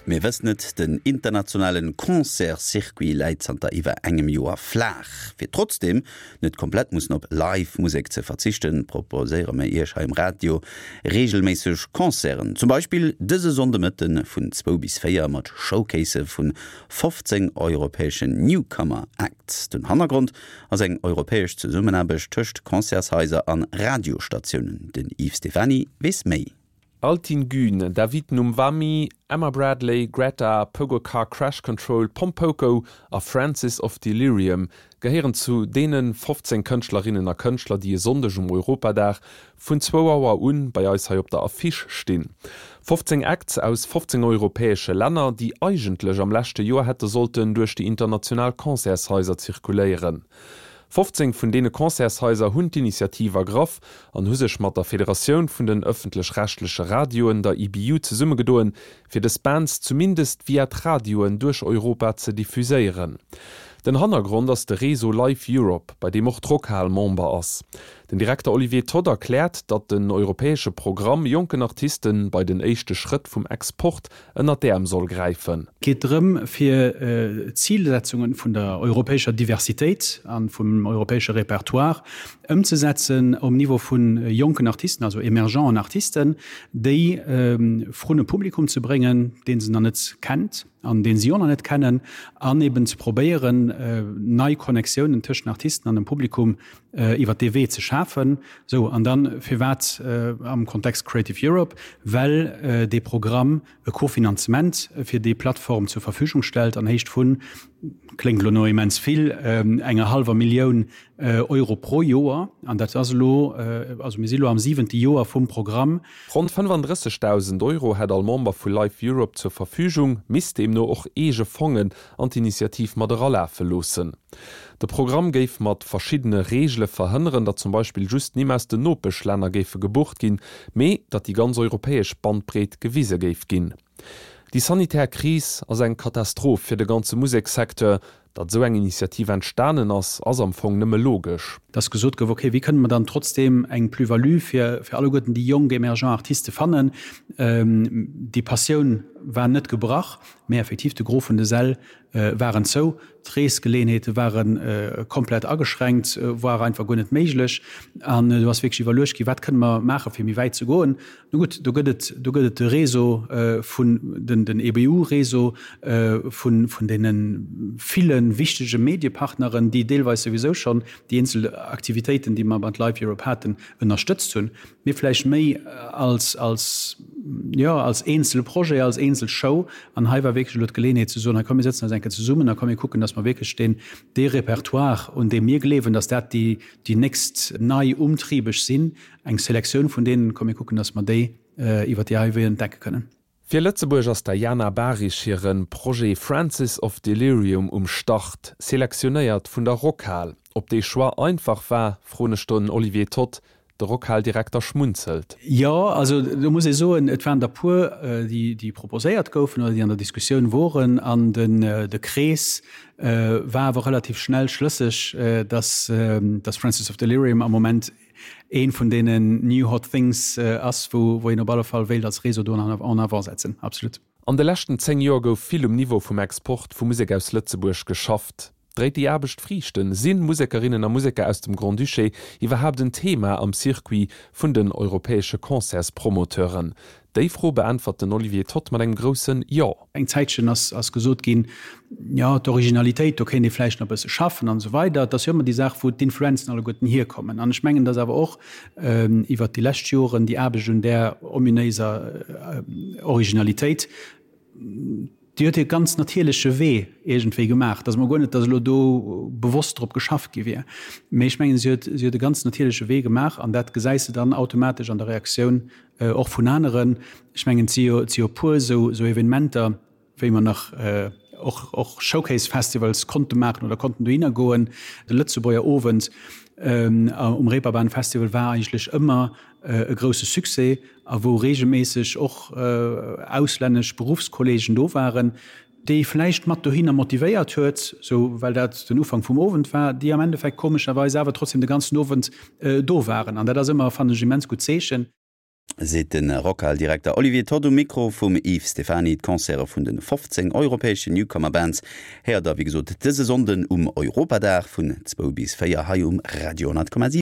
Mir wëssen et, den internationalen Concerts-Circuit läit zanter iwwer engem Joer flaach. Fir trotzdeem net komplett mussen op Live Musek ze verzichten, proposéiere mir Iech hei um Radio reegelméisseg Concerten. Zum Beispill dëse Sonndemëtte vun zwou bis 4 mat Showcasë vun 15 europäeschen Newcomer Acts. Den Hannergrond ass eng europäesch Zesummenaarbecht tëscht Concertshaiser an Radiostatiounen. Den Yves Stephany weess méi. Altin Gün, David Numwami, Emma Bradley, Greta, Pogo Car Crash Control, Pompoko a Francis of Delirium gehéieren zu deene 15 Kënschtlerinnen a Kënschtler, déi e Sonndeg um Europadag vun zwou Auer un bei eis hei op der Affiche stinn. 15 Acts aus 15 europäesche Länner, déi eigentlech am leschte Joer hätte sollten duerch déi international Concertshaiser zirkuléieren. 15 vun deene Concertshaiser hunn d'Initiativ ergraff an hu sech mat der Federatioun vun den ëffentlech-rechtleche Radioen, der EBU, zesummegedoen, fir dës Bands zumindest via d'Radioen duerch Europa ze diffuséieren. Den Hannergrond ass de Réseau Live Europe, bei deem och d'Rockhal Member ass. Den Direkter Olivier Todd erkläert, datt den europäesche Programm jonken Artiste bei den éischte Schrëtt vum Export ënnert d'Äerm soll gräifen. Et geet drëm, fir d'Zilsetzunge vun der europäescher Diversitéit a vum europäesche Repertoire ëmzesetzen um Niveau vu jonken Artisten, also emergenten Artisten, déi vrun e Publikum ze bréngen, dee se nach net kennt an dee si och nach net kennen, an eben ze probéieren, nei Connectiounen tëschent den Artisten an dem Publikum iwwert dee Wee ze schafen. Sou, an dann, firwat am Kontext Creative Europe? Well dee Programm e Kofinanzement fir déi Plattform zur Verfügung stellt an Héicht vun, kléngt elo no immens vill, enger hallwer Millioun Euro pro Joer. An dat ass elo, also mir si elo am siwente Joer vum Programm. Ronn 35.000 Euro hätt all Member vu Life Europe zur Verfügung, misst deemno och eege Fongen an d'Initiativ mat eralafe loossen. De Programm géif mat verschiddene Reegele verhënneren, datt zum Beispill just Nimm aus den Nopeschlänner géife gebucht ginn, mee datt déi ganz europäesch Bandbreet gewise géif ginn. Déi sanitär Kris ass eng Katastroph fir de ganze Musekssecteur. Datt esou eng Initiativ entstanen ass, ass am Fong nëmme logesch. Datt gesot gouf, okay, wéi kënne mer dann trotzdeem eng Plus-value fir alleguerten déi jonk emergent Artiste fannen? Déi Passioun war net gebrach, Mee effektiv, de Gros vun de Säll waren zou, d'Reesgeleenheete ware komplett ageschränkt, war einfach guer net méiglech. An do ass wierklech iwwerluecht ginn, wat kënne mer maachen, fir méi wäit ze goen. Nu gutt, do gëtt et, do gëtt et de Réseau vun, den, den EBU-Réseau vun, vun deene ville wichtege Mediepartneren, déi deelweis souwisou schonn déi eenzel Aktivitéiten, déi mer mat Live Europe haten, ënnerstëtzt hunn. Mee vläicht méi als, als, jo, als eenzele Projet, als eenzel Show. An hei war wierklech elo d'Geleeënheet ze soen, hei komm mir sëtzen eis eng Kéier zesummen a komm mir kucken, dass mer wierklech deen, dee Repertoire, un deem mir gleewen, dass dat déi, déi nächst nei Umtriebeg sinn, eng Selektioun vun deenen, komm mir kucken, dass mer déi iwwert déi hei Wee entdecke kënnen. Fir Lëtzebuerg ass der Jana Bahrich hire Projet Francis of Delirium um Start, selektionéiert vun der Rockhal. Ob dee Choix einfach war, froen ech den Olivier Toth. De Rockhal-Direkter schmunzelt. Jo, also do muss ee soen, et waren der puer, déi proposéiert goufen oder déi an der Diskussioun woren. An de Krees war awer relativ schnell schlësseg, datt Francis of Delirium am Moment Een vun deenen new hot things ass, wou een op alle Fall wéilt als Réseau do en avant setzen. Absolut. An de leschten 10 Joer gouf vill um Niveau vum Export vu Musek aus Lëtzebuerg geschafft. Dréit déi Aarbecht Friichten? Sinn Musekerinnen a Museker aus dem Grand-Duché iwwerhaapt en Thema am Circuit vun den europäesche Concertspromoteuren? Déi Fro beäntwert den Olivier Toth mat engem groussen Jo. Eng Zäitchen ass ass gesot ginn, jo, d'Originalitéit, do kéint ee vläicht nach e bësse schaffen an esou weider. Et ass jo ëmmer déi Saach, wou d'Influenzen alleguerten hierkommen. An ech mengen, datt awer och iwwert déi lescht Joren déi Aarbecht un där ominéiser Originalitéit, déi huet hir ganz natierleche Wee iergendwéi gemaach. Et ass emol guer net, datt elo do bewosst drop geschafft gi wier, mee ech mengen, si huet si huet e ganz natierleche Wee gemaach an dat gesäis de dann automatesch an der Reaktioun Och vun aneren. Ech mengen, et si jo, et si jo e puer esou, esou Evenementer, wéi mer nach och, och Showcase-Festivals konnte maachen oder konnten dohinner goen. De Lëtzebuerger Owend um Reeperbahn Festival war eigentlech ëmmer e grousse Succès a wou reegelméisseg och auslännesch Beruffskolleegen do waren, déi vläicht mat dohinner motivéiert huet, sou well dat den Ufank vum Owend war, déi am Endeffekt komescherweis awer trotzdem de ganzen Owend do waren. An dat ass ëmmer, fannen ech, immens gutt Zeechen. Seet de Rockhal-Direkter Olivier Todd um Mikro vum Yves Stephany. D'Concerte vun de 15 europäeschen Newcomer Bands héiert der wéi gesot dëse Sonnden um Europadag vun zwou bis 4 hei um Radio 10,7.